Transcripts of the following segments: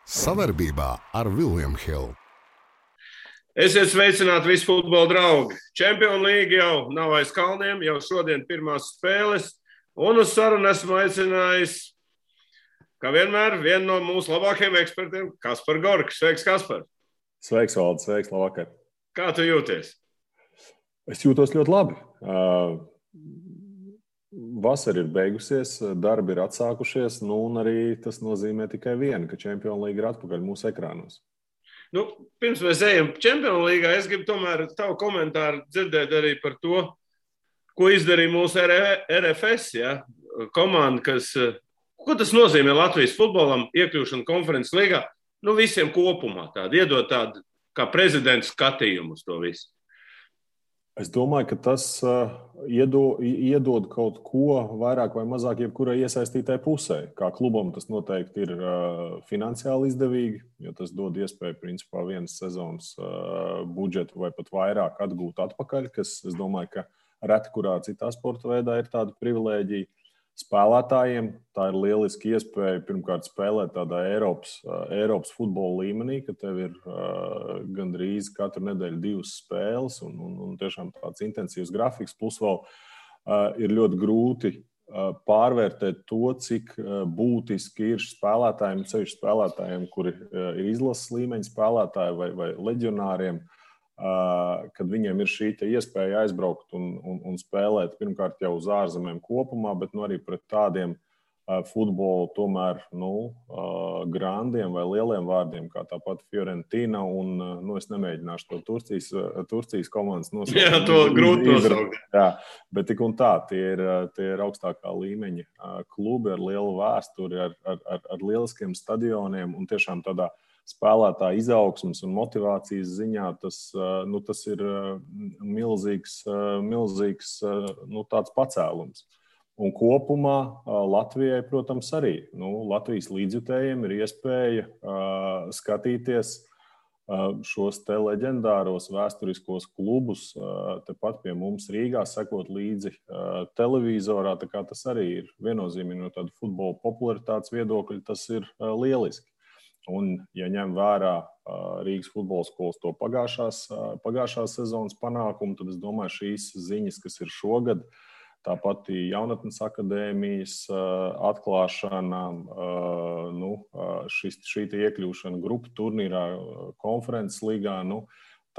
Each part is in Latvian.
Savarbībā ar William Hill. Esiet sveicināti visi futbola draugi. Champions League jau nav aiz kalniem, jau šodien pirmās spēles. Un uz sarunu esmu aicinājis, kā vienmēr, vienu no mūsu labākajiem ekspertiem, Kaspar Gorks. Sveiks, Kaspar! Sveiks, Valdis! Sveiks, labvakar! Kā tu jūties? Es jūtos ļoti labi. Vasara ir beigusies, darbi ir atsākušies, un arī tas nozīmē tikai vienu, ka Champions League ir atpakaļ mūsu ekrānos. Pirms mēs ejam Champions League, es gribu tomēr tavu komentāru dzirdēt arī par to, ko izdarīja mūsu RFS, komanda, ko tas nozīmē Latvijas futbolam iekļūšana konferences līgā, visiem kopumā tādu, iedot tādu kā prezidents skatījumu uz to visu. Es domāju, ka tas iedod kaut ko vairāk vai mazāk jebkurai iesaistītai pusē. Kā klubam tas noteikti ir finansiāli izdevīgi, jo tas dod iespēju principā vienas sezonas budžetu vai pat vairāk atgūt atpakaļ, kas, es domāju, ka reti kurā citā sporta veidā ir tāda privilēģija. Spēlētājiem tā ir lieliski iespēja pirmkārt spēlēt tādā Eiropas futbola līmenī, ka tev ir gandrīz katru nedēļu 2 spēles un tiešām tāds intensīvs grafiks. Plus vēl ir ļoti grūti pārvērtēt to, cik būtiski ir spēlētājiem, sevišķi spēlētājiem, kuri ir izlases līmeņa spēlētāji vai leģionāriem, kad viņiem ir šī iespēja aizbraukt un spēlēt pirmkārt jau uz ārzemēm kopumā, bet arī pret tādiem futbolu tomēr grandiem vai lieliem vārdiem, kā tāpat Fiorentina un, es nemēģināšu to Turcijas komandas nosaukt. Jā, to grūti nosaukt. Jā, bet tik un tā, tie ir augstākā līmeņa klubi ar lielu vēsturi, ar lieliskiem stadioniem un tiešām tādā spēlētāja izaugsmes un motivācijas ziņā tas ir milzīgs tāds pacēlums. Un kopumā Latvijai, protams, arī. Latvijas līdzjutējiem ir iespēja skatīties šos te leģendāros vēsturiskos klubus tepat pie mums Rīgā, sekot līdzi televizorā. Tā kā tas arī ir viennozīmīgi no tāda futbola popularitātes viedokļa, tas ir lieliski. Un, ja ņem vērā Rīgas futbola skolas to pagājušās sezonas panākumu, tad es domāju, šīs ziņas, kas ir šogad, tāpat jaunatnes akadēmijas atklāšana, šī iekļūšana grupu turnīrā, konferences līgā,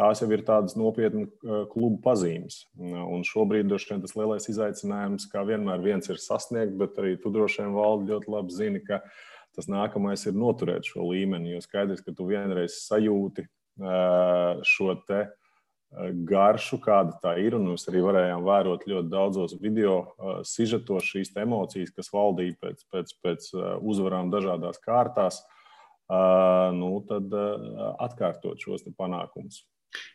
tās jau ir tādas nopietni klubu pazīmes. Un šobrīd droši vien tas lielais izaicinājums, kā vienmēr viens ir sasniegt, bet arī tu droši vien, Valdi, ļoti labi zini, ka tas nākamais ir noturēt šo līmeni, jo skaidrs, ka tu vienreiz sajūti šo te garšu, kāda tā ir, un mēs arī varējām vērot ļoti daudzos video sižetos šīs emocijas, kas valdīja pēc uzvarām dažādās kārtās, tad atkārtot šos te panākumus.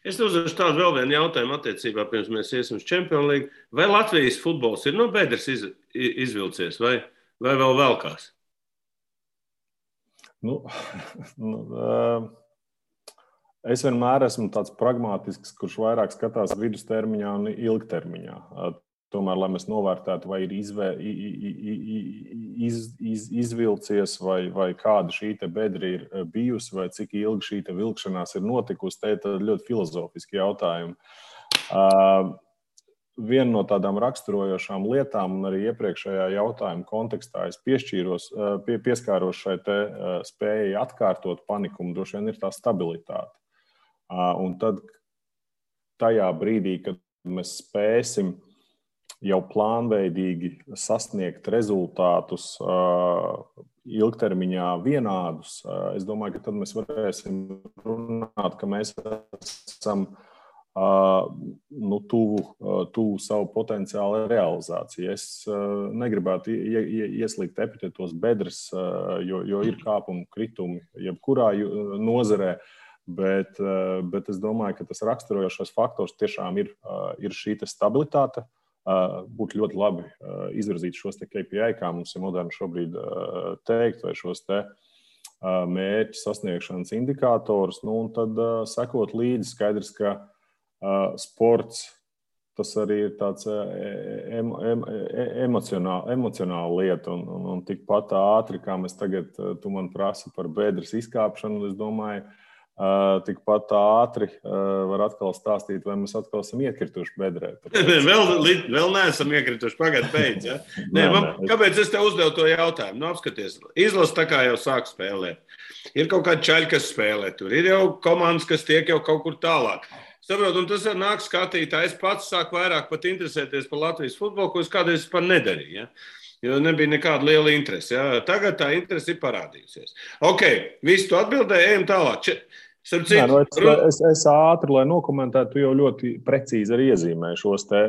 Es uzdošu tādu vēl vienu jautājumu attiecībā, pirms mēs iesim uz Champions League. Vai Latvijas futbols ir no bedres izvilcies, vai vēl velkās? Es vienmēr esmu tāds pragmātisks, kurš vairāk skatās vidustermiņā un ilgtermiņā. Tomēr, lai mēs novērtētu, vai ir izvilcies, vai kāda šī te bedra ir bijusi, vai cik ilgi šī te vilkšanās ir notikusi, te ir ļoti filozofiski jautājumi. Viena no tādām raksturojošām lietām, un arī iepriekšējā jautājuma kontekstā es pieskāros šai te spējai atkārtot panikumu, droši vien ir tā stabilitāte. Un tad tajā brīdī, kad mēs spēsim jau plānveidīgi sasniegt rezultātus ilgtermiņā vienādus, es domāju, ka tad mēs varēsim runāt, ka mēs esam tuvu savu potenciālu realizāciju. Es negribētu ieslīgt epitetos bedres, jo ir kāpumi, kritumi jebkurā nozarē, bet es domāju, ka tas raksturojošais faktors tiešām ir šī te stabilitāte. Būtu ļoti labi izvirzīt šos te KPI, kā mums ir moderni šobrīd teikt, vai šos te mērķu sasniegšanas indikātors, un tad sekot līdzi skaidrs, ka sports tas arī ir tāds emocionāla lieta. Un tikpat ātri, kā mēs tagad, tu man prasi par bedres izkāpšanu, es domāju, tikpat ātri var atkal stāstīt, vai mēs atkal esam iekrituši bedrē. Vēl neesam iekrituši, pagaid beidz. Ja? Kāpēc es tev uzdevu to jautājumu? Nu, apskaties, izlase tā kā jau sāk spēlēt. Ir kaut kādi čaļi, kas spēlē tur. Ir jau komandas, kas tiek jau kaut kur tālāk. Saprot, un tas nāk skatītājs. Es pats sāku vairāk pat interesēties par Latvijas futbolu, ko es kādreiz par nedarīju. Ja? Jo nebija nekāda liela interese. Ja? Tagad tā interese ir parādījusies. Ok, visu tu atbildēji, ejam tālāk. Es ātri, lai nokomentētu, tu jau ļoti precīzi arī iezīmēji šos te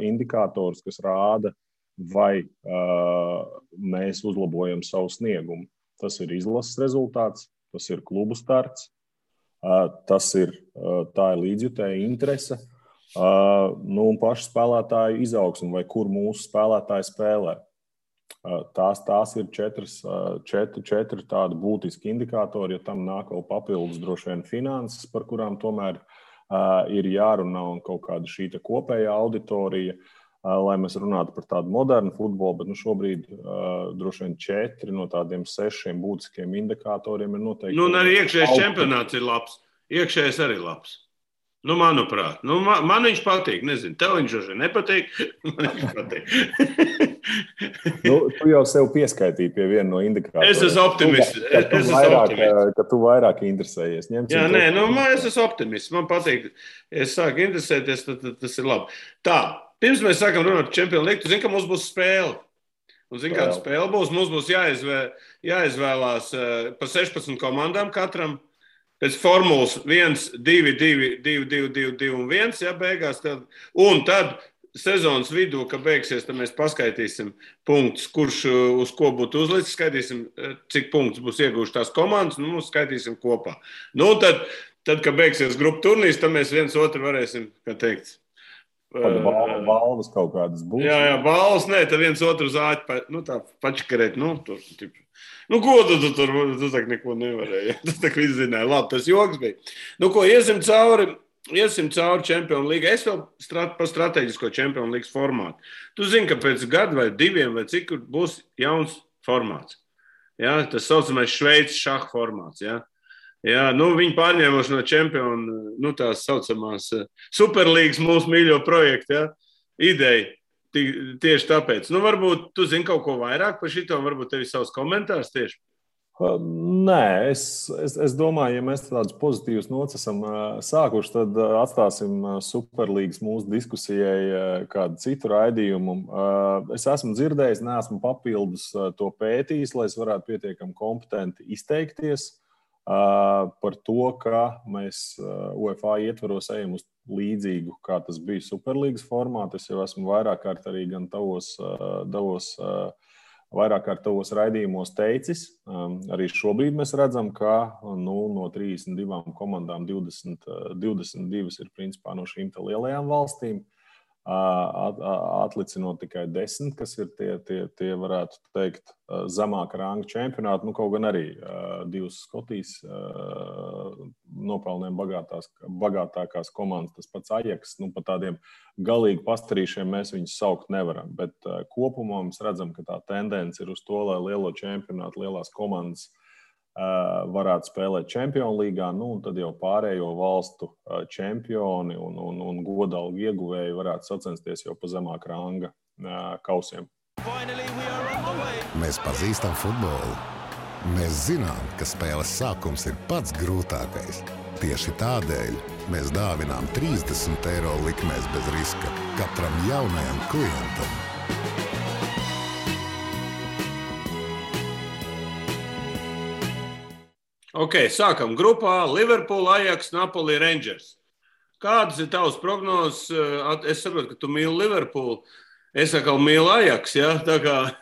indikātorus, kas rāda, vai mēs uzlabojam savu sniegumu. Tas ir izlases rezultāts, tas ir klubu starts, tā ir līdzjutēja interese, un paši spēlētāju izaugsme, vai kur mūsu spēlētāji spēlē. Tās ir četri tādi būtiski indikātori, ja tam nāk vēl papildus droši vien finanses, par kurām tomēr ir jārunā un kaut kāda šī kopējā auditorija, lai mēs runātu par tādu modernu futbolu, bet šobrīd droši vien 4 no tādiem 6 būtiskiem indikatoriem ir noteikti. Un arī iekšējais čempionāts ir labs. Iekšējais arī labs. Manuprāt. Man viņš patīk. Nezinu, tev viņš arī nepatīk. Man viņš patīk. Tu jau sev pieskaitīji pie viena no indikatoriem. Es esmu optimists. Ka tu vairāk interesējies. Jā, es esmu optimists. Man patīk. Es sāku interesēties, tad tas ir labi. Tā. Pirms mēs sākam runāt par Champions League, tu zini, ka mums būs spēle. Un zini, kāda spēle būs? Mums būs jāizvēlās pa 16 komandām katram. Pēc formulas 1, 2, 2, 2, 2, 2, 2 un 1, ja beigās. Un tad sezonas vidū, kad beigsies, tad mēs paskaitīsim punktus, kurš uz ko būtu uzlicis, skaitīsim, cik punktus būs ieguvuši tās komandas, un mums skaitīsim kopā. Tad, kad beigsies grupu turnīrs, tad mēs viens otru varēsim, kā teikt, balvas kaut kādas būs. Jā, balvas, tad viens otru zāķi, tā pačakarēt, ko tu tur, tu tak neko nevarēji, tu tak viss zināji, labi, tas joks bija. Iesim cauri Champions League, es vēl par strateģisko Champions League formātu. Tu zini, ka pēc gadu vai 2 vai cik būs jauns formāts. Ja? Tas saucamais Šveices šaha formāts, ja? Jā, viņi pārņēmuši no čempionu, tās saucamās Superlīgas mūsu mīļo projektu, ja? Ideja. Tieši tāpēc. Varbūt tu zini kaut ko vairāk par šito, varbūt tev ir savs komentārs tieši. Nē, es domāju, ja mēs tādus pozitīvus nots esam sākuši, tad atstāsim Superlīgas mūsu diskusijai kādu citu raidījumu. Es esmu dzirdējis, neesmu papildus to pētījis, lai es varētu pietiekami kompetenti izteikties par to, ka mēs UEFA ietvaros ejam uz līdzīgu, kā tas bija Superlīgas formātā. Es jau esmu vairāk kārt arī gan vairāk kārt tavos raidījumos teicis. Arī šobrīd mēs redzam, ka no 32 komandām 22 ir principā no šīm lielajām valstīm. Atlicinot tikai 10, kas ir tie varētu teikt, zemāka ranga čempionāti. Kaut gan arī 2 Skotijas nopelniem bagātākās komandas, tas pats Ajax. Pa tādiem galīgi pastarīšiem mēs viņus saukt nevaram. Bet kopumā mēs redzam, ka tā tendence ir uz to, lai lielo čempionātu, lielās komandas varētu spēlēt Champions Līgā, un tad jau pārējo valstu čempioni un godalgu ieguvēji varētu sacensties jau pa zemāk ranga kausiem. Mēs pazīstam futbolu. Mēs zinām, ka spēles sākums ir pats grūtākais. Tieši tādēļ mēs dāvinām 30 € likmēs bez riska katram jaunajam klientam. Ok, sākam grupā Liverpool, Ajax, Napoli, Rangers. Kādas ir tavas prognozes? Es saprotu, ka tu mīli Liverpool. Es atkal mīlu Ajax, ja? Tā kā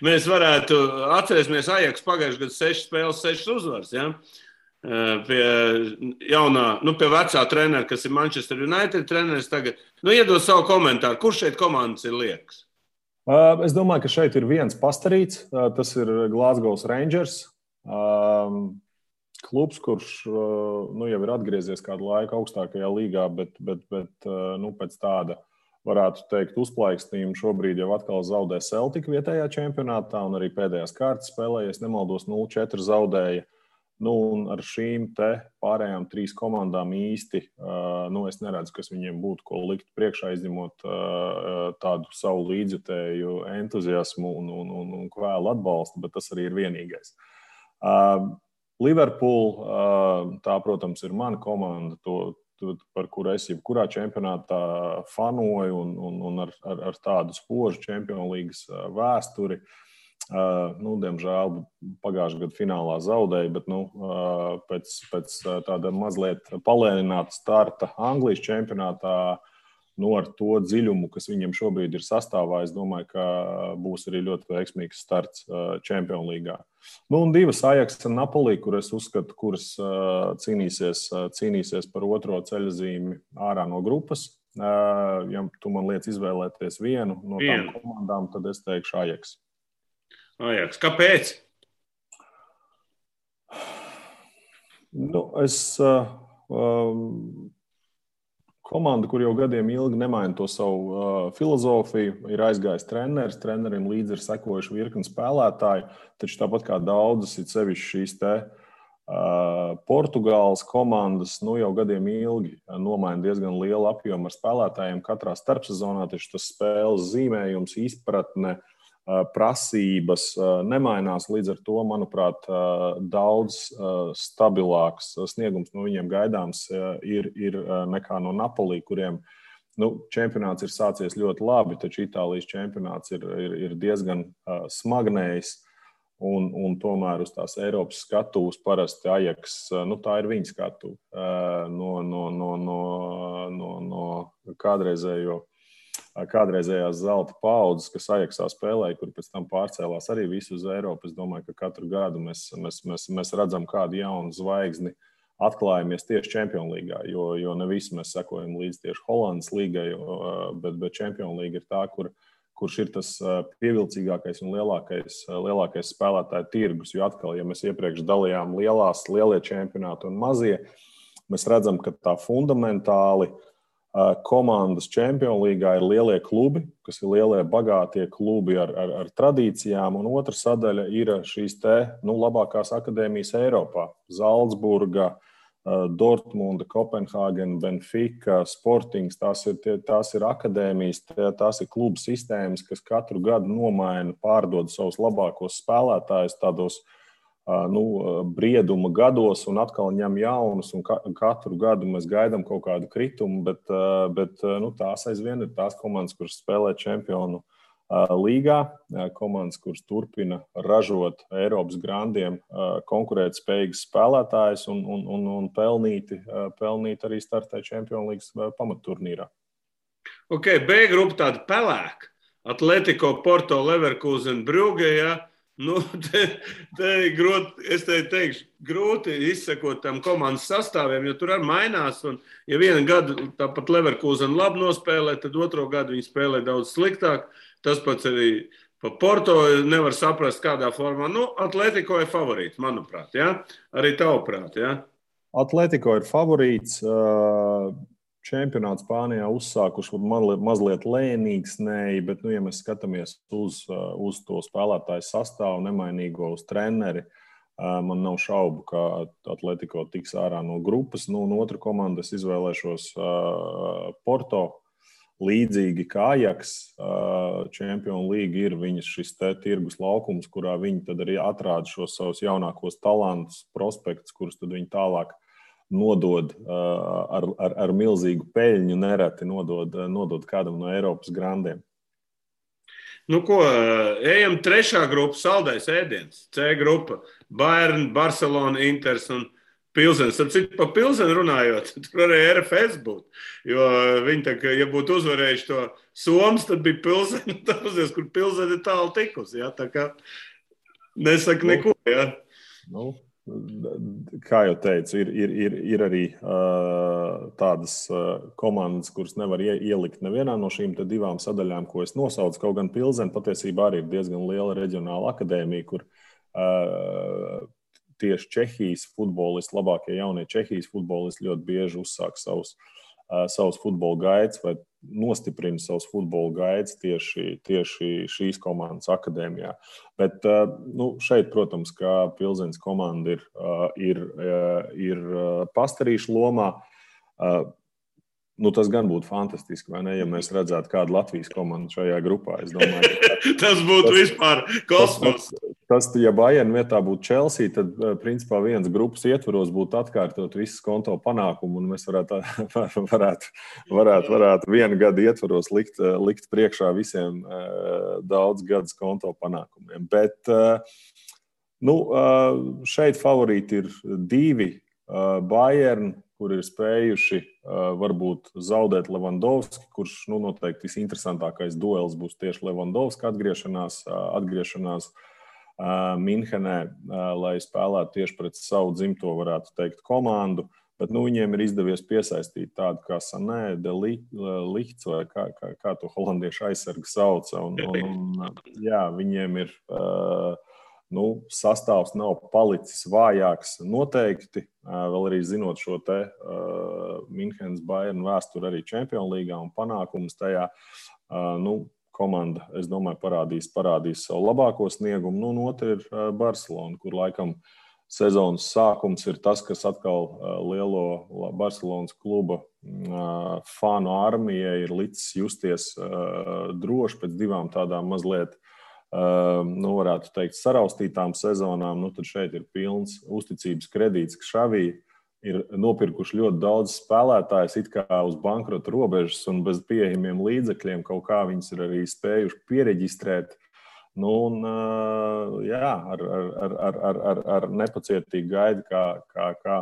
mēs varētu atcerēsimies Ajax pagājušajā gadā 6 spēles, 6 uzvaras, ja? Pie vecā trenera, kas ir Manchester United treneris tagad. Iedod savu komentāru. Kurš šeit komandas ir liekas? Es domāju, ka šeit ir viens pastarīts. Tas ir Glasgow Rangers. klubs, kurš jau ir atgriezies kādu laiku augstākajā līgā, bet pēc tāda, varētu teikt, uzplaikstījuma šobrīd jau atkal zaudē Celtic vietējā čempionātā, un arī pēdējās kārtas spēlē, ja nemaldos, 0-4 zaudēja. Un ar šīm te pārējām 3 komandām īsti, es neredzu, kas viņiem būtu ko likt priekšā, izņemot tādu savu līdzjutēju entuziasmu un kvēlu atbalstu, bet tas arī ir vienīgais. Liverpool, tā, protams, ir mana komanda, par kuru es jebkurā čempionātā fanoju un ar tādu spožu Champions Leagues vēsturi. Diemžēl pagājušajā gadu finālā zaudēja, bet pēc tāda mazliet palēnināta starta Anglijas čempionātā, ar to dziļumu, kas viņiem šobrīd ir sastāvā, es domāju, ka būs arī ļoti veiksmīgs starts Champions Līgā. Un 2 Ajax un Napoli, kur es uzskatu, kuras cīnīsies par otro ceļazīmi ārā no grupas. Ja tu man liec izvēlēties vienu no tām komandām, tad es teikšu Ajax. Ajax. Kāpēc? Komanda, kur jau gadiem ilgi nemaina to savu filozofiju, ir aizgājis treneris. Trenerim līdzi ir sekojuši virkni spēlētāji, taču tāpat kā daudzas, it sevišķi šīs te Portugāles komandas, jau gadiem ilgi nomaina diezgan lielu apjomu ar spēlētājiem katrā starpsezonā, taču tas spēles zīmējums, izpratne, prasības nemainās, līdz ar to, manuprāt, daudz stabilāks sniegums no viņiem gaidāms ir nekā no Napoli, kuriem čempionāts ir sācies ļoti labi, taču Itālijas čempionāts ir diezgan smagnējs un tomēr uz tās Eiropas skatuves parasti Ajax, tā ir viņa skatuve no kādreizējās zelta paudzes, kas Ajaxā spēlēja, kur pēc tam pārcēlās arī visu uz Eiropu. Es domāju, ka katru gadu mēs redzam kādu jaunu zvaigzni atklājamies tieši Champions Līgā, jo ne visi mēs sekojam līdz tieši Holandas līgai, bet Champions Līga ir tā, kurš ir tas pievilcīgākais un lielākais spēlētāju tirgus, jo atkal, ja mēs iepriekš dalījām lielie čempionāti un mazie, mēs redzam, ka tā fundamentāli komandas Champions Līgā ir lielie klubi, kas ir lielie, bagātie klubi ar tradīcijām, un otra sadaļa ir šīs labākās akadēmijas Eiropā. Zaldzburga, Dortmunda, Kopenhāgena, Benfica, Sportings, tās ir akadēmijas, tās ir klubu sistēmas, kas katru gadu nomaina, pārdod savus labākos spēlētājus tādos brieduma gados un atkal ņem jaunus, un katru gadu mēs gaidām kaut kādu kritumu, bet tās aizvien ir tās komandas, kuras spēlē Čempionu līgā, komandas, kuras turpina ražot Eiropas grandiem konkurētspējīgas spēlētājus un pelnīt arī startē Čempionu līgas pamatturnīrā. Ok, B grupa tāda pelēka. Atletico, Porto, Leverkusen, Brugge, ja? Es teikšu, grūti izsekot tam komandas sastāviem, jo tur arī mainās. Un, ja vienu gadu tāpat Leverkusen labi nospēlē, tad otro gadu viņi spēlē daudz sliktāk. Tas pats arī pa Porto nevar saprast, kādā formā. Atletico ir favorīts, manuprāt. Ja? Arī tavuprāt. Ja? Atletico ir favorīts. Čempionāts Spānijā uzsākuši mazliet lēnīgsnēji, bet, ja mēs skatāmies uz to spēlētāju sastāvu, nemainīgo uz treneri, man nav šaubu, ka Atletico tiks ārā no grupas. Un otra komanda es izvēlēšos Porto, līdzīgi kā Ajax. Champions League ir viņas šis tirgus laukums, kurā viņi tad arī atrāda šos savus jaunākos talantus, prospektus, kurus tad viņi tālāk nodod ar milzīgu peļņu, nereti nodod kādam no Eiropas grandiem. Ejam trešā grupa, saldais ēdiens. C grupa, Bayern, Barcelona, Inters un Pilsens. Pa Pilsenu runājot, tur arī RFS būtu. Jo viņi, ja būtu uzvarējuši to Somas, tad bija Pilsena. Tāpēc, kur Pilsena ir tālu tikusi. Ja? Tā kā nesaka neko. Ja? Kā jau teicu, ir arī tādas komandas, kuras nevar ielikt nevienā no šīm divām sadaļām, ko es nosaucu. Kaut gan Pilsena patiesībā arī ir diezgan liela reģionāla akadēmija, kur tieši Čehijas futbolisti, labākie jaunie Čehijas futbolisti ļoti bieži uzsāk savus futbola gaitas vai nostiprina savus futbola gaitas tieši šīs komandas akadēmijā. Bet šeit, protams, kā Pilzeņas komanda ir pastarīšu lomā, tas gan būtu fantastiski, vai ne, ja mēs redzētu kādu Latvijas komandu šajā grupā. Es domāju, tas būtu vispār kosmos. Tas, ja Bayern vietā būtu Chelsea, tad, principā, viens grupas ietvaros būtu atkārtot visas konto panākumu, un mēs varētu vienu gadu ietvaros likt priekšā visiem daudz gadus konto panākumiem. Bet, šeit favorīti ir 2 Bayern, kur ir spējuši varbūt zaudēt Levandovski, kurš noteikti visinteresantākais duels būs tieši Levandovska atgriešanās Minhenē, lai spēlētu tieši pret savu dzimto, varētu teikt, komandu. Bet viņiem ir izdevies piesaistīt tādu kā Sané, De Ligt, vai kā to holandiešu aizsargu sauca. Viņiem ir sastāvs nav palicis vājāks noteikti, vēl arī zinot šo te Minhenes Bayern vēsturi arī Čempionu līgā un panākumus tajā. Komanda, es domāju, parādīs savu labāko sniegumu. Un otra ir Barcelona, kur laikam sezonas sākums ir tas, kas atkal lielo Barcelonas kluba fanu armijai ir licis justies droši pēc 2 tādām mazliet, varētu teikt, saraustītām sezonām. Tad šeit ir pilns uzticības kredīts, ka Xavi ir nopirkuši ļoti daudz spēlētājus it kā uz bankrota robežas un bez pieejamiem līdzekļiem. Kaut kā viņus ir arī spējuši piereģistrēt. Ar nepacietīgu gaidu, kā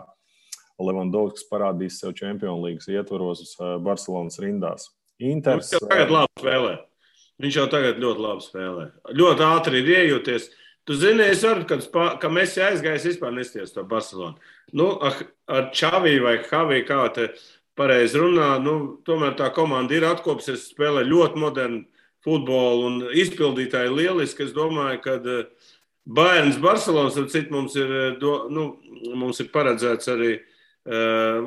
Levandovskis parādīs sev Čempionu līgas ietvaros Barcelonas rindās. Inters Viņš jau tagad ļoti labi spēlē. Ļoti ātri ir iejoties. Tu zini, es varu, ka Messi aizgājis vispār nesties to Barcelonu. Ar Xavi vai Javi, kā te pareizi runā, tomēr tā komanda ir atkopusies, spēlē ļoti modernu futbolu un izpildītāji lieliski. Es domāju, ka Bayerns Barcelonas, mums ir paredzēts arī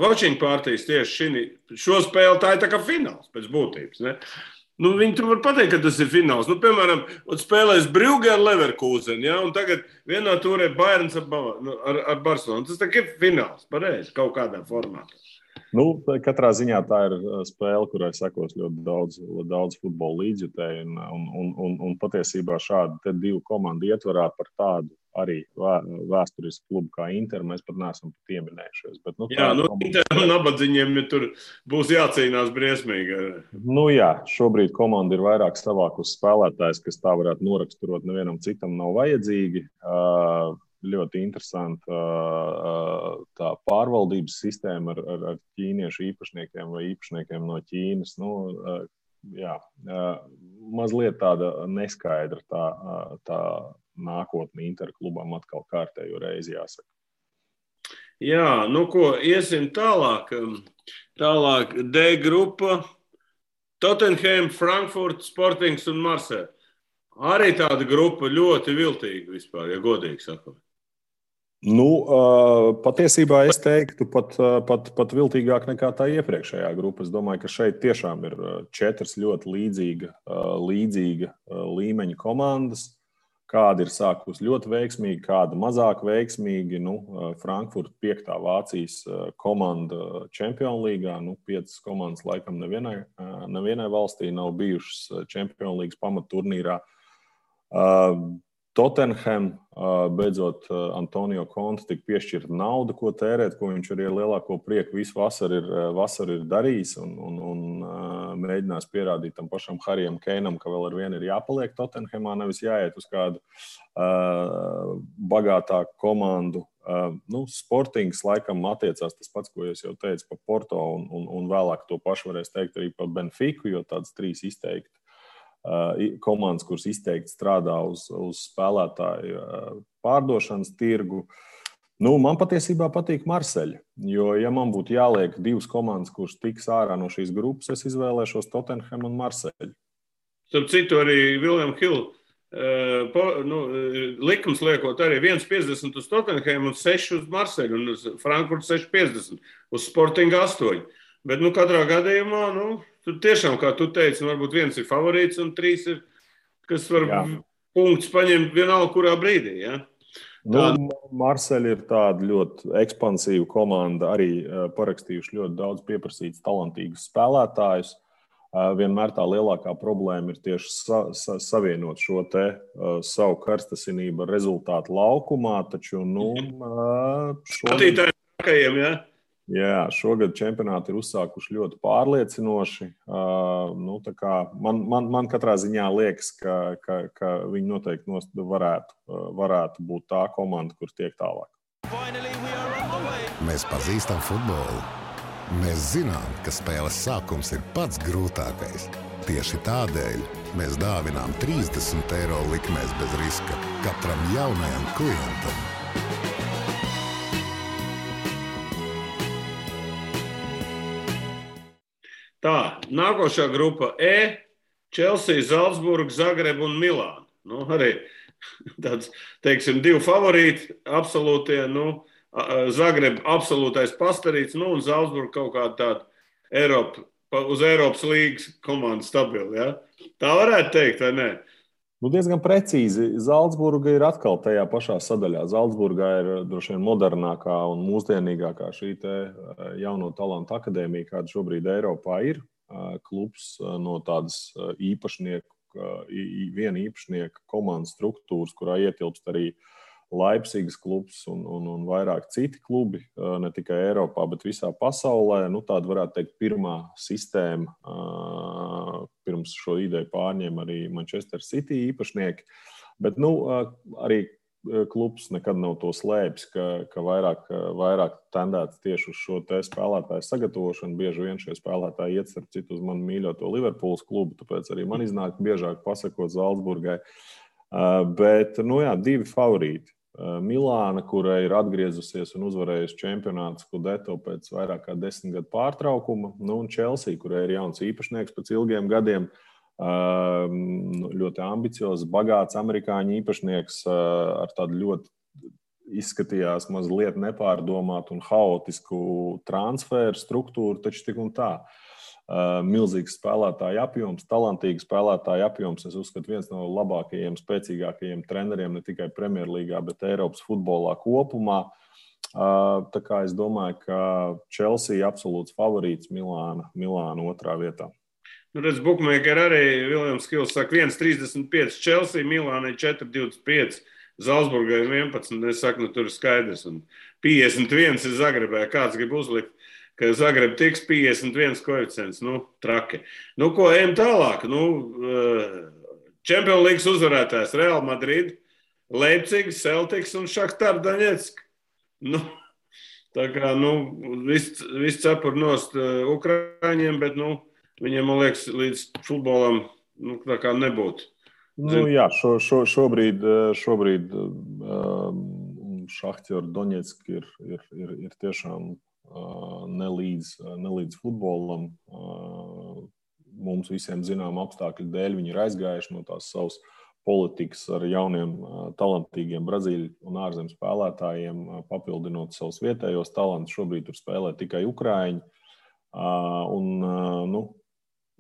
watching partijas tieši šo spēli. Tā ir tā kā fināls pēc būtības, ne? Viņi tur var pateikt, ka tas ir fināls. Piemēram, spēlēs Brugge ar Leverkusen, un tagad vienā turē Bayerns ar Barcelonu. Tas tā ir fināls, pareizi, kaut kādā formātā. Katrā ziņā tā ir spēle, kurai sekos ļoti daudz futbola līdzjutēju, un patiesībā šādi te 2 komandu ietvarā par tādu arī vēsturisku klubu kā Inter mēs pat neesam pieminējušies. Bet, Inter un nabadzīņiem tur būs jācīnās briesmīgi. Šobrīd komanda ir vairāk savākus spēlētājs, kas tā varētu noraksturot nevienam citam nav vajadzīgi. Ļoti interesanta tā pārvaldības sistēma ar ķīniešu īpašniekiem vai īpašniekiem no Ķīnas. Mazliet tāda neskaidra tā nākotne Inter klubam atkal kārtējo reizi jāsaka. Iesim tālāk. Tālāk D grupa, Tottenham, Frankfurt, Sportings un Marseille. Arī tāda grupa ļoti viltīga vispār, ja godīgi sakot. Patiesībā es teiktu pat viltīgāk nekā tā iepriekšējā grupa. Es domāju, ka šeit tiešām ir 4 ļoti līdzīga līmeņa komandas. Kāda ir sākusi ļoti veiksmīgi, kāda mazāk veiksmīgi. Frankfurt 5. Vācijas komanda Čempionu līgā. 5 komandas laikam nevienai valstī nav bijušas Čempionu līgas pamatturnīrā. Tottenham, beidzot, Antonio Conte tika piešķirta nauda, ko tērēt, ko viņš arī ar lielāko prieku visu vasaru ir darījis un mēģinās pierādīt tam pašam Harijam Keinam, ka vēl ar vienu ir jāpaliek Tottenhamā, nevis jāiet uz kādu bagātāku komandu. Sportings laikam attiecās tas pats, ko es jau teicu par Porto un vēlāk to pašu varēs teikt arī par Benfiku, jo tādas 3 izteikti komandas, kuras izteikti strādā uz spēlētāju pārdošanas tirgu. Man patiesībā patīk Marseille, jo, ja man būtu jāliek 2 komandas, kuras tiks ārā no šīs grupas, es izvēlēšos Tottenham un Marseille. Starp citu, arī William Hill likums liekot arī 1,50 uz Tottenham un 6 uz Marseļu un uz Frankfurtu 6,50 uz Sportingu 8. Bet, katrā gadījumā, tur tiešām, kā tu teici, varbūt viens ir favorīts un 3 ir, kas var punktus paņemt vienalga kurā brīdī, ja? Marseļa ir tāda ļoti ekspansīva komanda, arī parakstījuši ļoti daudz pieprasītus talantīgus spēlētājus. Vienmēr tā lielākā problēma ir tieši savienot šo te savu karstasinību ar rezultātu laukumā, taču, skatītājiem trakajiem, ja? Jā, šogad čempionāti ir uzsākuši ļoti pārliecinoši. Tā kā man katrā ziņā liekas, ka viņi noteikti varētu būt tā komanda, kur tiek tālāk. Mēs pazīstam futbolu. Mēs zinām, ka spēles sākums ir pats grūtākais. Tieši tādēļ mēs dāvinām 30 eiro likmēs bez riska katram jaunajam klientam. Tā, nākošā grupa E, Chelsea, Zalcburga, Zagreba un Milāna. Arī tāds, teiksim, 2 favorīti, absolūtie, Zagreba absolūtais pastarīts, un Zalcburga kaut kāda tāda uz Eiropas līgas komanda stabila, ja? Tā varētu teikt, vai ne? Diezgan precīzi. Zalcburga ir atkal tajā pašā sadaļā. Zalcburgā ir droši vien modernākā un mūsdienīgākā šī te jauno talantu akadēmija, kāda šobrīd Eiropā ir. Klubs no tādas viena īpašnieka komandas struktūras, kurā ietilpst arī Leipzigas klubs un vairāk citi klubi, ne tikai Eiropā, bet visā pasaulē. Tāda varētu teikt pirmā sistēma, pirms šo ideju pārņem arī Manchester City īpašnieki. Bet arī klubs nekad nav to slēpis, ka vairāk tendēts tieši uz šo te spēlētāju sagatavošanu. Bieži vien šie spēlētāji iet starp citu uz manu mīļoto Liverpools klubu, tāpēc arī man iznāk biežāk pasakot Zalcburgai. Bet, 2 favorīti. Milāna, kura ir atgriezusies un uzvarējusi čempionātu Scudetto pēc vairāk kā 10 gadu pārtraukuma, un Chelsea, kurai ir jauns īpašnieks pēc ilgiem gadiem, ļoti ambiciozs, bagāts amerikāņu īpašnieks ar tādu ļoti izskatījās mazliet nepārdomātu un haotisku transferu struktūru, taču tik un tā. Milzīgs spēlētāju apjoms, talantīgi spēlētāju apjoms. Es uzskatu, viens no labākajiem, spēcīgākajiem treneriem ne tikai Premjerlīgā, bet Eiropas futbolā kopumā. Tā kā es domāju, ka Chelsea absolūts favorīts, Milāna otrā vietā. Redz, bookmaker arī Viljams Kils saka 1,35 Chelsea, Milānai 4,25, Zalcburgai 11. Es saku, tur ir skaidrs. Un 51 ir Zagrebē. Kāds grib uzlikt? Ka Zagreba tiks 51 koeficients, traki. Ko ejam tālāk? Champions League uzvarētājs Real Madrid, Leipziga, Celtics un Šahtar Daņetsk. Tā kā, viss cepur nost Ukraiņiem, bet, viņiem, man liekas, līdz futbolam, tā kā nebūtu. Jā, šobrīd Šahtar Daņetsk ir tiešām nelīdz futbolam. Mums visiem zinām apstākļu dēļ viņi ir aizgājuši no tās savas politikas ar jauniem talantīgiem Brazīļu un ārzemes spēlētājiem, papildinot savus vietējos talantus. Šobrīd tur spēlē tikai Ukraiņi.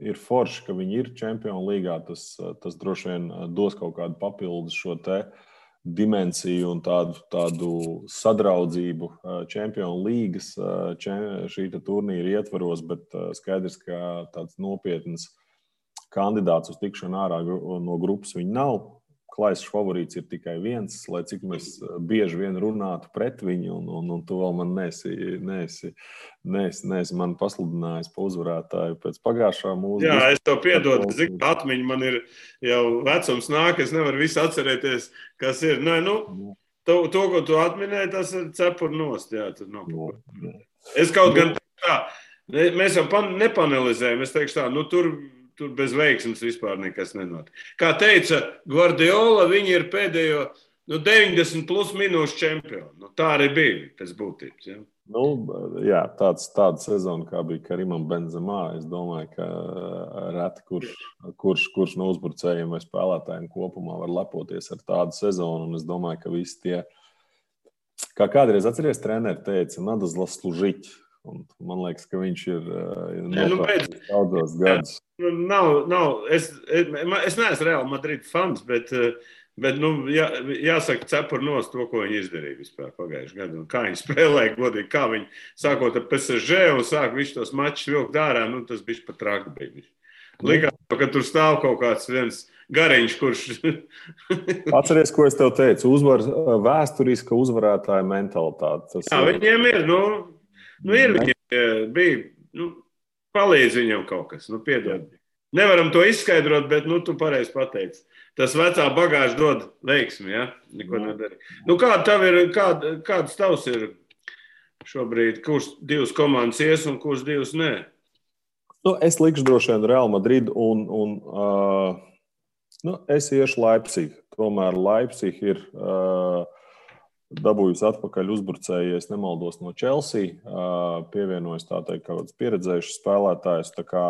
Ir forši, ka viņi ir Čempionu līgā. Tas droši vien dos kaut kādu papildus šo te dimensiju un tādu sadraudzību Čempionu līgas šī turnīra ietvaros, bet skaidrs, ka tāds nopietns kandidāts uz tikšanu ārā no grupas viņi nav. Klaisas favorīts ir tikai viens, lai cik mēs bieži vien runātu pret viņu, un tu vēl man neesi man pasludinājis pa uzvarētāju pēc pagājušā mūsu. Jā, es tev piedodu, zinu, atmiņa man ir jau vecums nāk, es nevaru visu atcerēties, kas ir. To, ko tu atminēji, tas ir cepur nost, jā. Es kaut gan tā, mēs jau nepanelizējam, es teikšu tā, tur bez veiksmes vispār nekas nenotiek. Kā teica Guardiola, viņi ir pēdējo 90 plus minūšu čempionu. Nu, tā arī bija pēc būtības. Ja? Nu, jā, tāda sezona, kā bija Karimam Benzemā, es domāju, ka reti kurš no uzbrucējiem vai spēlētājiem kopumā var lepoties ar tādu sezonu. Un es domāju, ka visi tie, kā kādreiz atceries, treneri teica, надо заслужить. Un man liekas, ka viņš ir nopelnījis daudzos gadus. Es neesmu Real Madrid fans, bet jāsaka cepur nost to, ko viņi izdarīja vispār pagājušajā gadā. Kā viņi spēlēja godīgi, kā viņi sākot ar PSG un sāk visu tos mačus vilkt ārā, tas bija pat traki bija. Likās, ka tur stāv kaut kāds viens gariņš, kurš... Atceries, ko es tev teicu, vēsturiska uzvarētāja mentalitāte. Jā, viņiem ir, viņiem bija, palīdz viņam kaut kas, piedod. Nevaram to izskaidrot, bet, tu pareizi pateici. Tas vecā bagāža dod veiksmi, ja? Neko nedarī. Kāds tavs ir šobrīd, kurš divas komandas ies un kurš divas nē? Es likšu droši vien Real Madrid un es iešu Leipzig. Tomēr Leipzig ir dabūjusi atpakaļ uzbrucēju, ja es nemaldos, no Chelsea. Pievienojas tā teikt kāds pieredzējušs spēlētājs. Tā kā,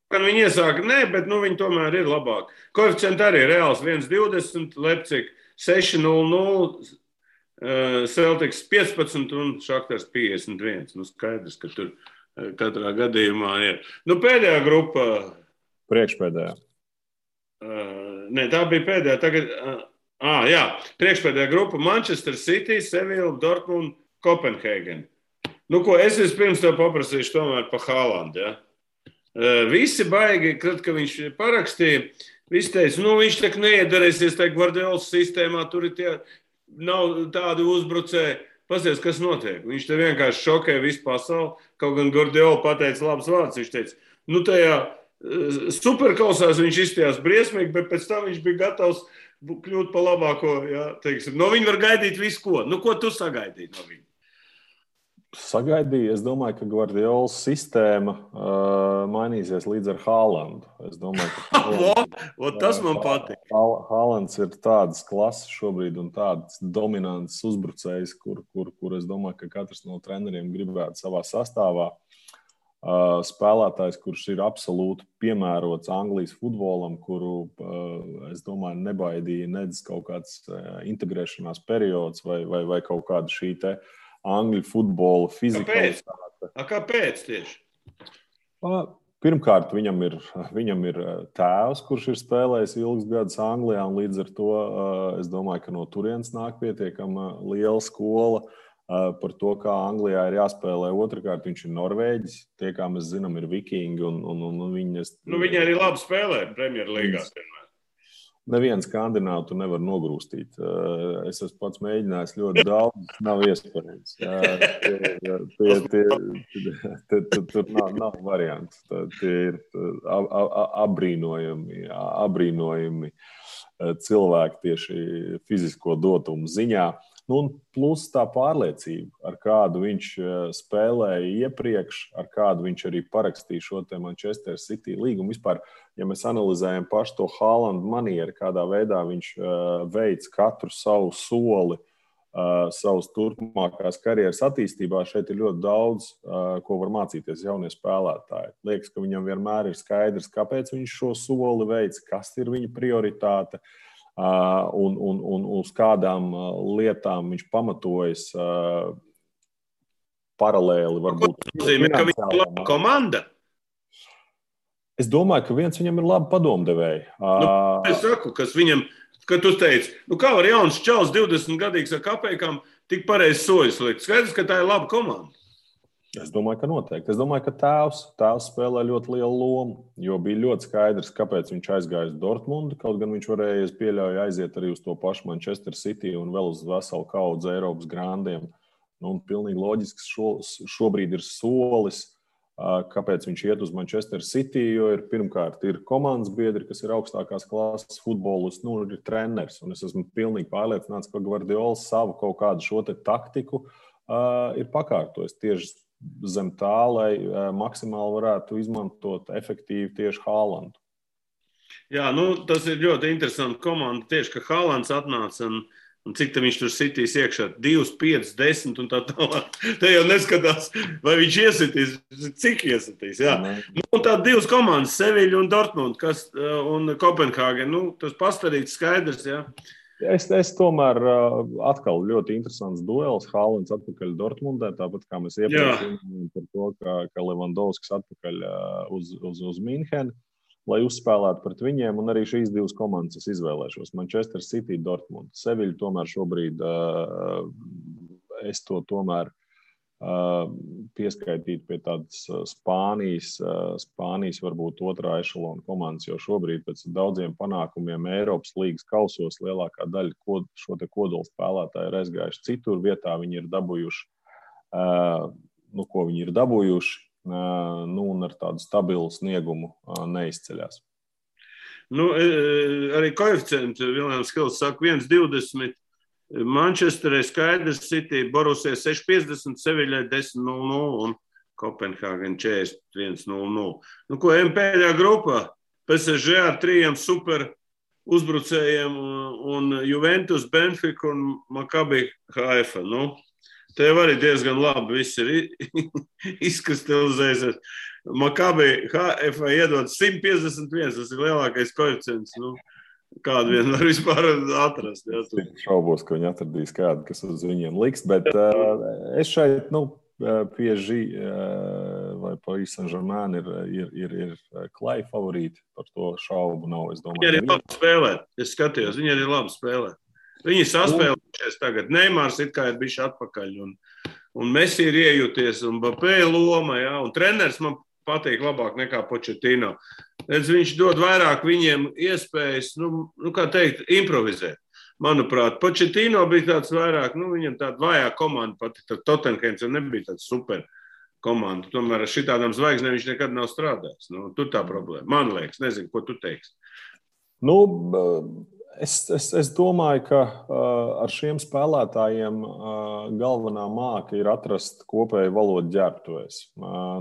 Kad viņi iesāka, bet viņi tomēr ir labāk. Koeficienti arī reāls 1,20, Leipzig 6,00, Celtics 15 un Shaktars 51. Skaidrs, ka tur katrā gadījumā ir. Pēdējā grupa... Priekšpēdējā. Tā bija pēdējā. Tagad, jā, priekšpēdējā grupa Manchester City, Sevilla, Dortmund, Kopenhēgen. Es vispirms tev paprasīšu tomēr pa Haalandu, ja? Visi baigi, kad viņš parakstīja, visi teica, viņš tak neiedarēsies tajā Guardiolas sistēmā, tur nav tādi uzbrucēji. Pasies, kas notiek? Viņš te vienkārši šokē visu pasauli, kaut gan Guardiola pateica labs vārds. Viņš teica, tajā superkausās viņš izstījās briesmīgi, bet pēc tam viņš bija gatavs kļūt pa labāko, ja, teiksim. No viņa var gaidīt visu ko. Ko tu sagaidīji no viņa? Sagaidīju. Es domāju, ka Guardiolas sistēma mainīsies līdz ar Haalandu. Es domāju, ka tas man patīk. Haalands ir tādas klases šobrīd un tāds dominants uzbrucējs, kur es domāju, ka katrs no treneriem gribētu savā sastāvā. Spēlētājs, kurš ir absolūti piemērots Anglijas futbolam, kuru, es domāju, nebaidīja nedz kaut kāds integrēšanās periods vai kaut kāda šī te Angļu futbola fizikalitāte. Kāpēc tieši? Pirmkārt, viņam ir tēvs, kurš ir spēlējis ilgus gadus Anglijā, un līdz ar to es domāju, ka no turienes nāk pietiekama liela skola par to, kā Anglijā ir jāspēlē. Otrakārt, viņš ir Norvēģis. Tie, kā mēs zinām, ir vikingi. Viņi arī labi spēlē Premjerlīgā. Nevienu skandināvu nevar nogrūstīt. Es esmu pats mēģinājis ļoti daudz, nav iespējams. Tur nav variantu. Tie ir abrīnojami cilvēki tieši fizisko dotumu ziņā. Plus tā pārliecība, ar kādu viņš spēlēja iepriekš, ar kādu viņš arī parakstīja šo te Manchester City līgumu. Vispār, ja mēs analizējam pašu to Haalandu manieru, kādā veidā viņš veic katru savu soli, savas turpmākās karjeras attīstībā, šeit ir ļoti daudz, ko var mācīties jaunie spēlētāji. Liekas, ka viņam vienmēr ir skaidrs, kāpēc viņš šo soli veic, kas ir viņa prioritāte. Un uz kādām lietām viņš pamatojas paralēli. Varbūt. Nozīmē, ka viņš ir laba komanda? Es domāju, ka viens viņam ir laba padomdevēji. Es saku, kas viņam, kad tu teici, kā var jauns čals 20 gadīgs ar kapekām tik pareizi sojas likt? Skaidrs, ka tā ir laba komanda. Es domāju, ka noteikti. Es domāju, ka tēvs spēlē ļoti lielu lomu, jo bija ļoti skaidrs, kāpēc viņš aizgāja uz Dortmundu, kaut gan viņš varēja, pieļauju, aiziet arī uz to pašu Manchester City un vēl uz veselu kaudzi Eiropas grandiem. Pilnīgi loģisks šobrīd ir solis, kāpēc viņš iet uz Manchester City, jo pirmkārt ir komandas biedri, kas ir augstākās klases futbolists, ir treneris. Un es esmu pilnīgi pārliecināts, ka Guardiola savu kaut kādu šo te taktiku ir pakārtojis tieši zem tā, lai maksimāli varētu izmantot efektīvi tieši Haalandu. Jā, tas ir ļoti interesanti komanda. Tieši, ka Haalands atnāca un cik tam viņš tur sitīs iekšā, 2, 5, 10 un tā tālāk. Te jau neskatās, vai viņš iesitīs, cik iesitīs. Jā. Un tā 2 komandas, Seviļa un Dortmund, un Kopenhāgen. Tas pastarīts skaidrs, jā. Es tomēr atkal ļoti interesants duels. Haalands atpakaļ Dortmundē, tāpat kā mēs iepriekš runājām par to, ka Levandovskis atpakaļ uz Minhenu, lai uzspēlētu pret viņiem, un arī šīs 2 komandas es izvēlēšos. Manchester City, Dortmund. Seviļa tomēr šobrīd es to tomēr pieskaitītu pie tādas Spānijas varbūt otrā ešalona komandas, jo šobrīd pēc daudziem panākumiem Eiropas līgas kausos lielākā daļa šo te kodolu spēlētāju ir aizgājuši citur vietā. Viņi ir dabūjuši, ko viņi ir dabūjuši, un ar tādu stabilu sniegumu neizceļās. Arī koeficienti Viljams Hils saka 1,20. Manchesterē skaidrs, City, Borussia 6,50, Seviļai 10,00 un Kopenhāgen 41,00. Ko pēdējā grupā? PSG ar 3 super uzbrucējiem un Juventus, Benfica un Maccabi Haifa. Te arī diezgan labi viss ir izkristalizējies. Maccabi Haifa iedod 151, tas ir lielākais koeficients. Kādu vien var vispār atrast. Es šaubos, ka viņi atradīs kādu, kas uz viņiem liks, bet es šeit, PSG vai Paris Saint-Germain ir klai favorīti, par to šaubu nav, es domāju. Viņi arī labi spēlē, es skatījos, viņi arī labi spēlē. Viņi saspēlējušies tagad, Neimārs it kā ir bišķi atpakaļ, un Messi ir iejūties, un Mbappé loma, jā, un treneris man patīk labāk nekā Pochettino. Viņš dod vairāk viņiem iespējas, kā teikt, improvizēt. Manuprāt, Pochettino bija tāds vairāk, viņam tāda vājā komanda pati, tad Tottenhams nebija tāds super komanda. Tomēr ar šitādām zvaigznēm viņš nekad nav strādājis. Tur tā problēma. Man liekas, nezinu, ko tu teiksi. Es domāju, ka ar šiem spēlētājiem galvenā māka ir atrast kopēju valodu ģērbtuvēs.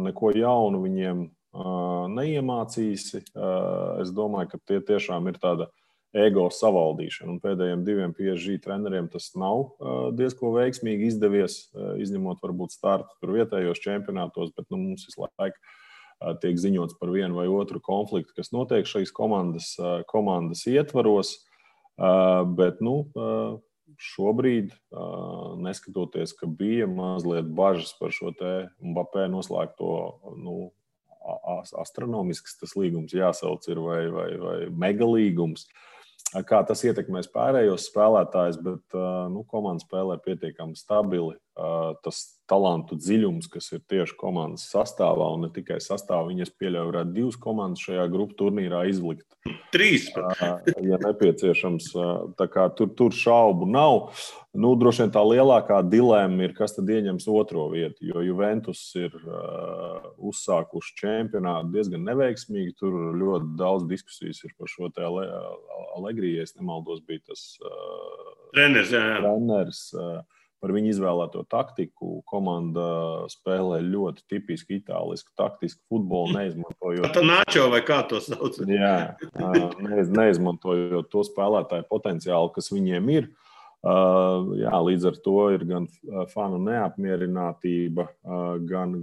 Neko jaunu viņiem neiemācīsi. Es domāju, ka tie tiešām ir tāda ego savaldīšana. Un pēdējiem 2 PSG treneriem tas nav diezko veiksmīgi izdevies, izņemot varbūt startu tur vietējos čempionātos, bet mums visu laiku tiek ziņots par vienu vai otru konfliktu, kas notiek šīs komandas ietvaros. Bet šobrīd, neskatoties, ka bija mazliet bažas par šo te Mbappé noslēgto, astronomisks tas līgums jāsauc ir vai megalīgums, kā tas ietekmēs pārējos spēlētājus, bet komanda spēlē pietiekami stabili. Tas talantu dziļums, kas ir tieši komandas sastāvā, un ne tikai sastāvā, viņas pieļauj varētu 2 komandas šajā grupu turnīrā izlikt. 3. Ja nepieciešams. Tā kā tur šaubu nav. Droši vien tā lielākā dilēma ir, kas tad ieņems otro vietu, jo Juventus ir uzsākuši čempionātu diezgan neveiksmīgi. Tur ļoti daudz diskusijas ir par šo te Allegri, ja es nemaldos, bija tas treneris. Par viņu izvēlēto taktiku. Komanda spēlē ļoti tipisku itālisku taktisku futbolu, neizmantojot. Tā Nacho vai kā to sauc? Jā, neizmantojot to spēlētāju potenciālu, kas viņiem ir. Jā, līdz ar to ir gan fanu neapmierinātība, gan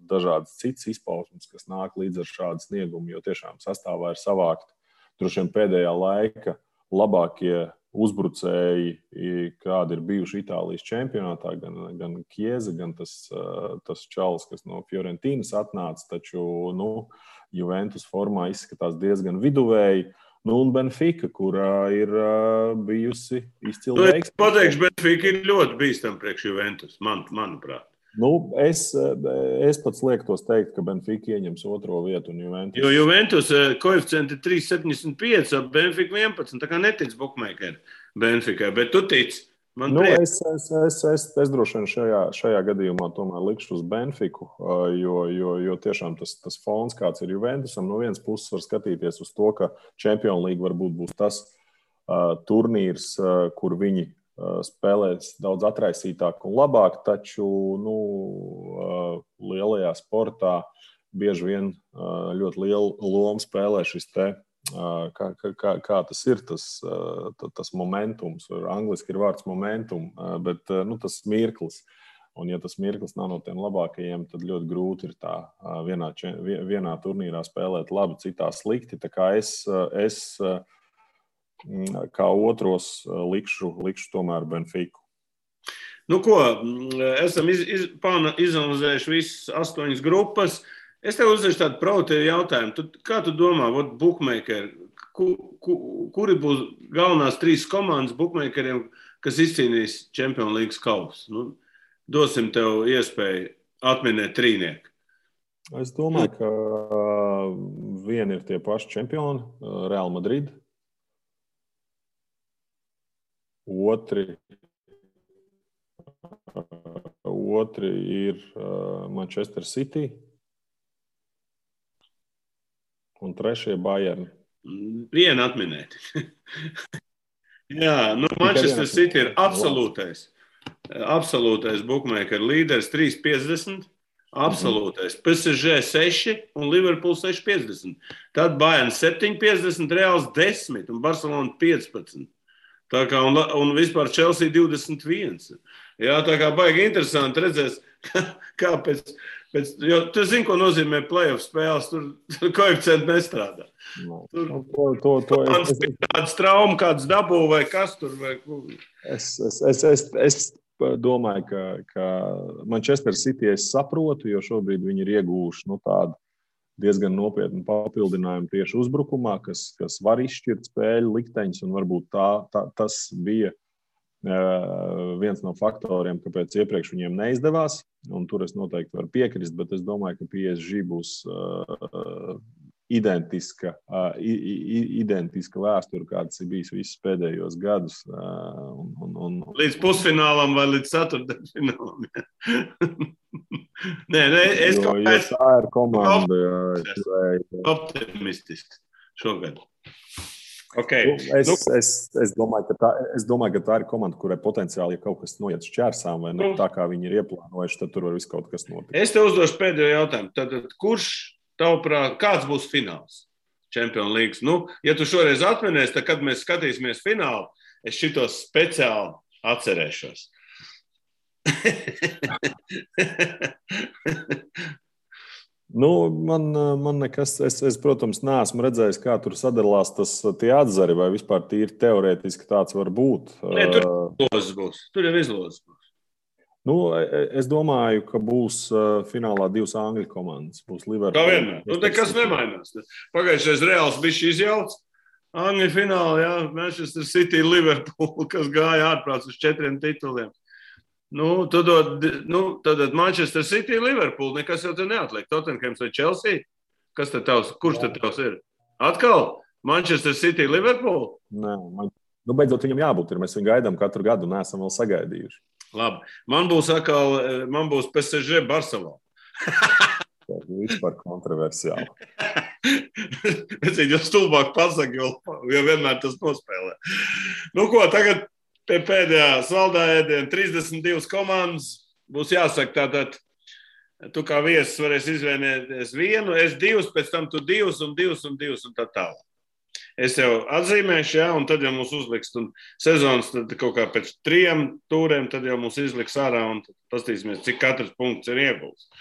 dažādas citas izpausmes, kas nāk līdz ar šādu sniegumu, jo tiešām sastāvā ir savākt droši vien pēdējā laika labākie uzbrucēji, kādi ir bijuši Itālijas čempionātā, gan Chiesa, gan tas čalis, kas no Fiorentīnas atnāca, taču Juventus formā izskatās diezgan viduvēji. Un Benfica, kurā ir bijusi izcila veiksme. Es pateikšu, Benfica ir ļoti bīstama priekš Juventus, manuprāt. Es pats liektos teikt, ka Benfica ieņems otro vietu un Juventus. Jo Juventus koeficienti 3,75, Benfica 11, tā kā netic bookmakeri Benficai, bet tu tici. Es droši vien šajā gadījumā tomēr likšu uz Benfiku, jo tiešām tas fons, kāds ir Juventusam, no vienas puses var skatīties uz to, ka Champions League varbūt būs tas turnīrs, kur viņi spēlēs daudz atraisītāk un labāk, taču lielajā sportā bieži vien ļoti lielu lomu spēlē šis te, kā tas ir, tas momentums. Angliski ir vārds momentum, bet tas mirklis. Un, ja tas mirklis nav no tiem labākajiem, tad ļoti grūti ir tā vienā turnīrā spēlēt labi, citā slikti. Tā kā es kā otros likšu tomēr Benfiku. Nu ko, esam izanalizējuši visas 8 grupas. Es tev uzdešu tādu provokatīvu jautājumu. Kā tu domā, bookmakeri, kuri būs galvenās 3 komandas bookmakeriem, kas izcīnīs Champions League kausu? Dosim tev iespēju atminēt trīnieku. Es domāju, ka vieni ir tie paši čempioni, Real Madrid. Otri ir Manchester City. Un trešie Bayern. Vienu atminēt. Jā, Manchester City ir absolūtais bookmaker līderis 3,50. Absolūtais. PSG 6 un Liverpool 6,50. Tad Bayern 7,50, Reals 10 un Barcelona 15. Tā kā un vispār Chelsea 21. Jā, tā kā baigi interesanti redzēs, kā pēc jo tu zini, ko nozīmē playoff spēles, tur koeficienti nestrādā. Kādas traumas, kādas dabū vai kas tur? Es domāju, ka Manchester City es saprotu, jo šobrīd viņi ir ieguvuši tādu diezgan nopietnu papildinājumu tieši uzbrukumā, kas var izšķirt spēļu likteņus, un varbūt tas bija viens no faktoriem, kāpēc iepriekš viņiem neizdevās, un tur es noteikti varu piekrist, bet es domāju, ka PSG būs identiska vēsture, kāds ir bijis visus pēdējos gadus. Līdz pusfinālam vai līdz ceturtdaļfinālam. Jo tā ir komanda. Optimistisks šogad. Okay. Es domāju, ka tā ir komanda, kurai potenciāli, ja kaut kas noiet šķērsām vai tā, kā viņi ir ieplānojuši, tad tur var viss kaut kas notikt. Es tev uzdošu pēdējo jautājumu. Tad kurš, tavuprāt, kāds būs fināls Champions League? Ja tu šoreiz atminies, tad, kad mēs skatīsimies finālu, es šitos speciāli atcerēšos. Man nekas, es, protams, neesmu redzējis, kā tur sadalās tie atzari, vai vispār tīri teorētiski tāds var būt. Tur jau izlozes būs. Es domāju, ka būs finālā 2 angļu komandas. Būs Liverpool. Tā vienmēr. Nekas nemainās. Pagājušais Reāls bija izjauts. Angļu finālā, jā, Manchester City, Liverpool, kas gāja ārprāts uz 4 tituliem. Tad Manchester City, Liverpool, nekas jau te neatliek. Tottenhams vai Chelsea? Kurš tad tavs ir? Atkal Manchester City, Liverpool? Nē, beidzot viņam jābūt. Mēs viņu gaidām katru gadu un neesam vēl sagaidījuši. Labi. Man būs PSG Barcelona. Tas ir vispār kontroversiāli. Es viņu stulbāk pasaku, jo vienmēr tas nospēlē. Tagad pie pēdējā saldā ēdiena 32 komandas būs jāsaka tātad, tu kā viesis varēsi izvēlēties vienu, es 2, pēc tam tu 2 un 2 un 2 un tā tālāk. Es jau atzīmēšu, jā, un tad jau mums uzliks, un sezonas tad kaut kā pēc 3 tūriem, tad jau mums izliks ārā un pastīsimies, cik katrs punkts ir iegūts.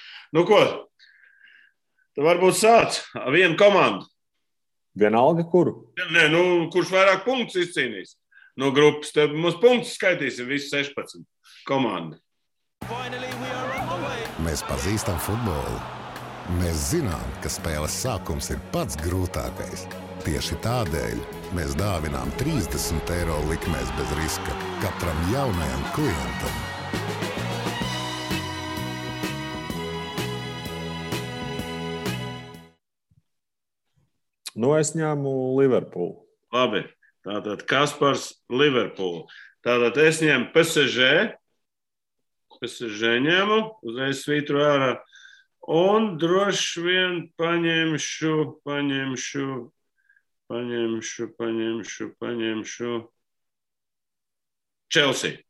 Ko? Tad varbūt sāc vienu komandu. Vienalga kuru? Nē, kurš vairāk punktus izcīnīs? No grupas. Tad mums punktus skaitīsim visi 16 komandi. Mēs pazīstam futbolu. Mēs zinām, ka spēles sākums ir pats grūtākais. Tieši tādēļ mēs dāvinām 30 eiro likmēs bez riska katram jaunajam klientam. Es ņēmu Liverpool. Labi. Tātad Kaspars Liverpool. Tātad es ņemu PSG. PSG ņemu, uzreiz svītru ārā. Un droši vien paņemšu Chelsea.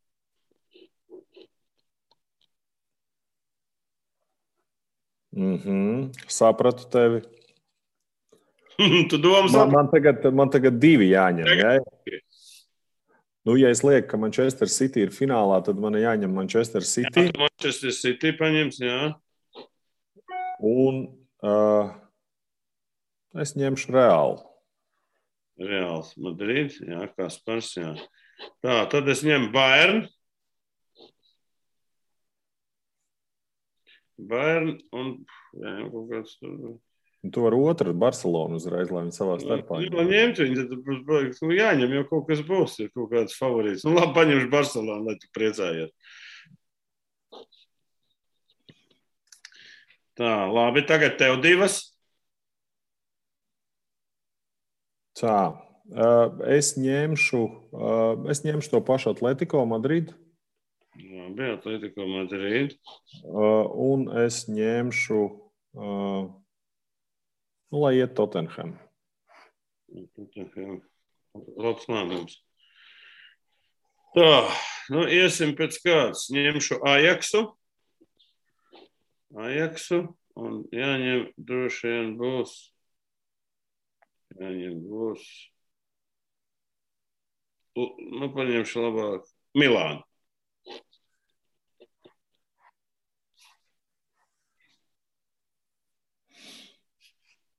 Sapratu tevi. Tu domā, Man tagad 2 jāņem. Ja? Nu, ja es lieku, ka Manchester City ir finālā, tad man jāņem Manchester City. Jā, Manchester City paņems, jā. Un es ņemšu Reālu. Reāls Madrid, jā, Kaspars, jā. Tā, tad es ņemu Bayern un, jā, kaut kāds tur. Tu vari otru Barcelonu uzreiz, lai viņi savā starpā. Jā, ņemt viņi, tad jāņem, jo kaut kas būs, ir kaut kāds favorīts. Nu, labi, paņemšu Barcelonu, lai tu priecājies. Tā, labi, tagad tev 2. Tā, es ņemšu to pašu Atletico Madrid. Labi, Atletico Madrid. Un es ņemšu, lai iet Tottenham. Labs lēmums. Tā, nu iesim pēc kāds. Ņemšu Ajaxu. Un jāņem droši vien būs. Nu, paņemšu labāk Milānu.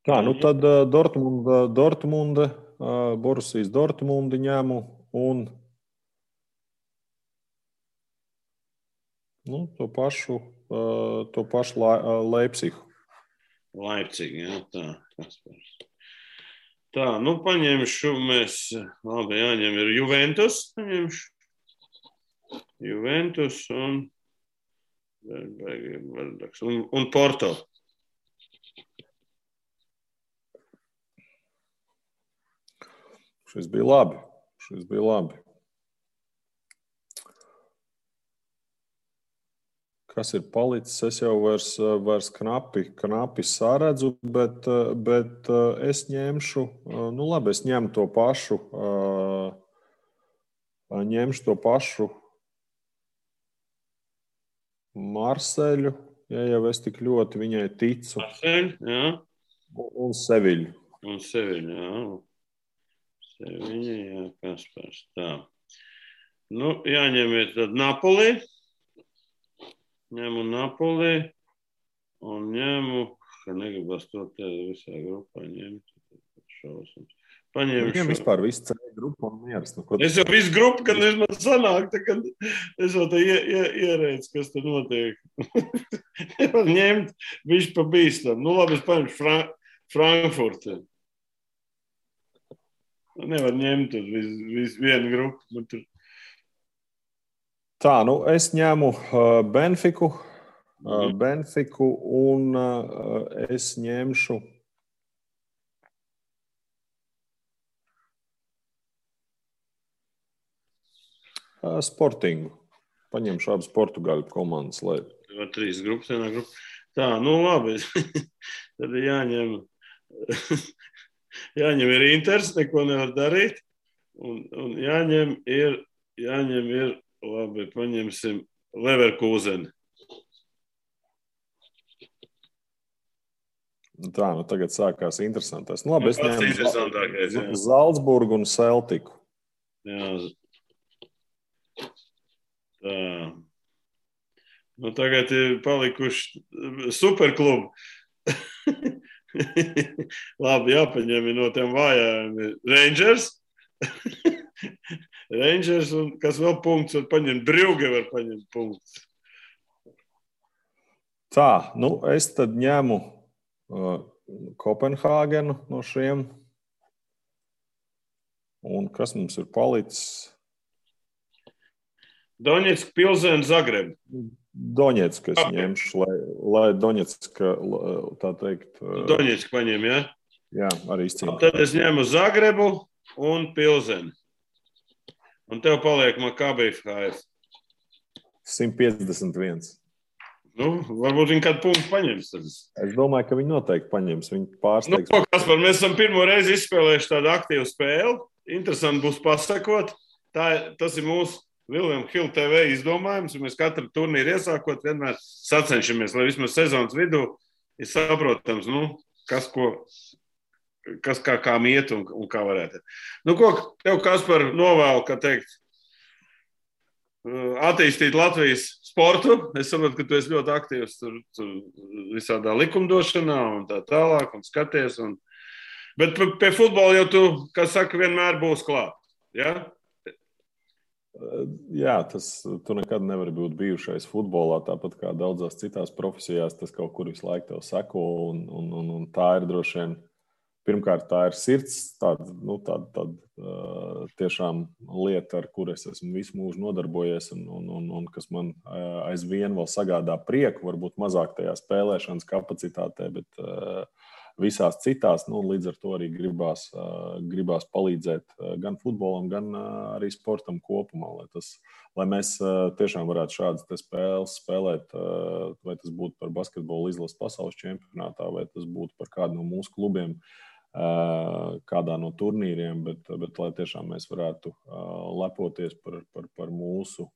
Tā, nu tad Dortmunda, Borussijas Dortmundi ņemu un to pašu Leipzigu. Leipzig, jā, tā. Kaspars. Tā, nu paņemšu mēs, labi, jāņem ir Juventus, paņemšu. Juventus un Porto. Šis bija labi. Kas ir palicis? Es jau vairs knapi saredzu, bet es ņemšu, nu labi, es ņemu to pašu Marseļu, ja jau es tik ļoti viņai ticu. Marseļu, jā. Un Seviļu. Jā. Seviļa, jā, Kaspars. Tā. Nu, jāņem ir tad Napoli. Ņemu Napoli un ņemu, ka negribas to te visā grupā ņemt. Šausums. Paņemšu. Viņam vispār visu ceļu grupu un mieras. Es jau visu grupu, kad man sanāk, kad es jau te ierēdzu, kas te notiek. Nevar ņemt, viņš pa bīstam. Nu labi, es paņemšu Frankfurti. Nevar ņemt vienu grupu. Tā, nu es ņemu Benfiku un es ņemšu Sportingu. Paņemšu abas Portugāļu komandas. 3 grupas, vienā grupa. Tā, nu labi. Tad jāņem ir Inters, neko nevar darīt. Un jāņem ir, labi, paņemsim Leverkuseni. Tā, nu tagad sākās interesantais. Nu labi, es ņemu Zalcburgu un Celtiku. Jā. Tā. Nu tagad ir palikuši superklubi. Labi, jāpaņem no tiem vājām Rangers. Rangers un kas vēl punkts var paņemt. Brugge var paņemt punkts. Tā, nu es tad ņemu Kopenhāgenu no šiem. Un kas mums ir palicis? Doņetska, Pilsēna, Zagreb. Doņetska es ņemšu, lai Doņetska, tā teikt... Doņetska paņem, jā? Jā, arī izcīnīt. Tad es ņemu Zagrebu un Pilsēnu. Un tev paliek Maccabi Haifa. 151. Nu, varbūt viņi kādu punktu paņems. Es domāju, ka viņi noteikti paņems. Viņi pārsteigs. Nu, Kaspar, mēs esam pirmo reizi izspēlējuši tādu aktīvu spēli. Interesanti būs pasakot. Tas ir mūsu William Hill TV izdomājums. Mēs katru turnīru iesākot vienmēr sacenšamies, lai vismaz sezonas vidū ir saprotams, kas kā iet un kā varētu. Ko tev, Kaspar, novēlu, kā teikt, attīstīt Latvijas sportu? Es saprotu, ka tu esi ļoti aktīvs tur visādā likumdošanā un tā tālāk un skaties. Bet pie futbola jau tu, kā saka, vienmēr būs klāt. Ja? Jā, tu nekad nevari būt bijušais futbolā, tāpat kā daudzās citās profesijās, tas kaut kur visu laiku tev seko, un tā ir droši vien, pirmkārt, tā ir sirds, tāda tiešām lieta, ar kur es esmu visu mūžu nodarbojies, un kas man aizvien vēl sagādā prieku, varbūt mazāk tajā spēlēšanas kapacitātē, bet visās citās, līdz ar to arī gribās palīdzēt gan futbolam, gan arī sportam kopumā, lai mēs tiešām varētu šādas spēles spēlēt, vai tas būtu par basketbolu izlases pasaules čempionātā, vai tas būtu par kādu no mūsu klubiem, kādā no turnīriem, bet lai tiešām mēs varētu lepoties par mūsu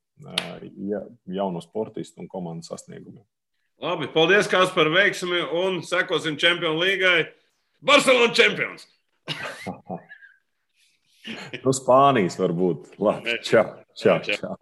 jauno sportistu un komandas sasniegumiem. Labi, paldies, Kaspar, veiksmi un sekosim Čempionu līgai. Barcelona čempions! Spānijas varbūt. Labi, čau.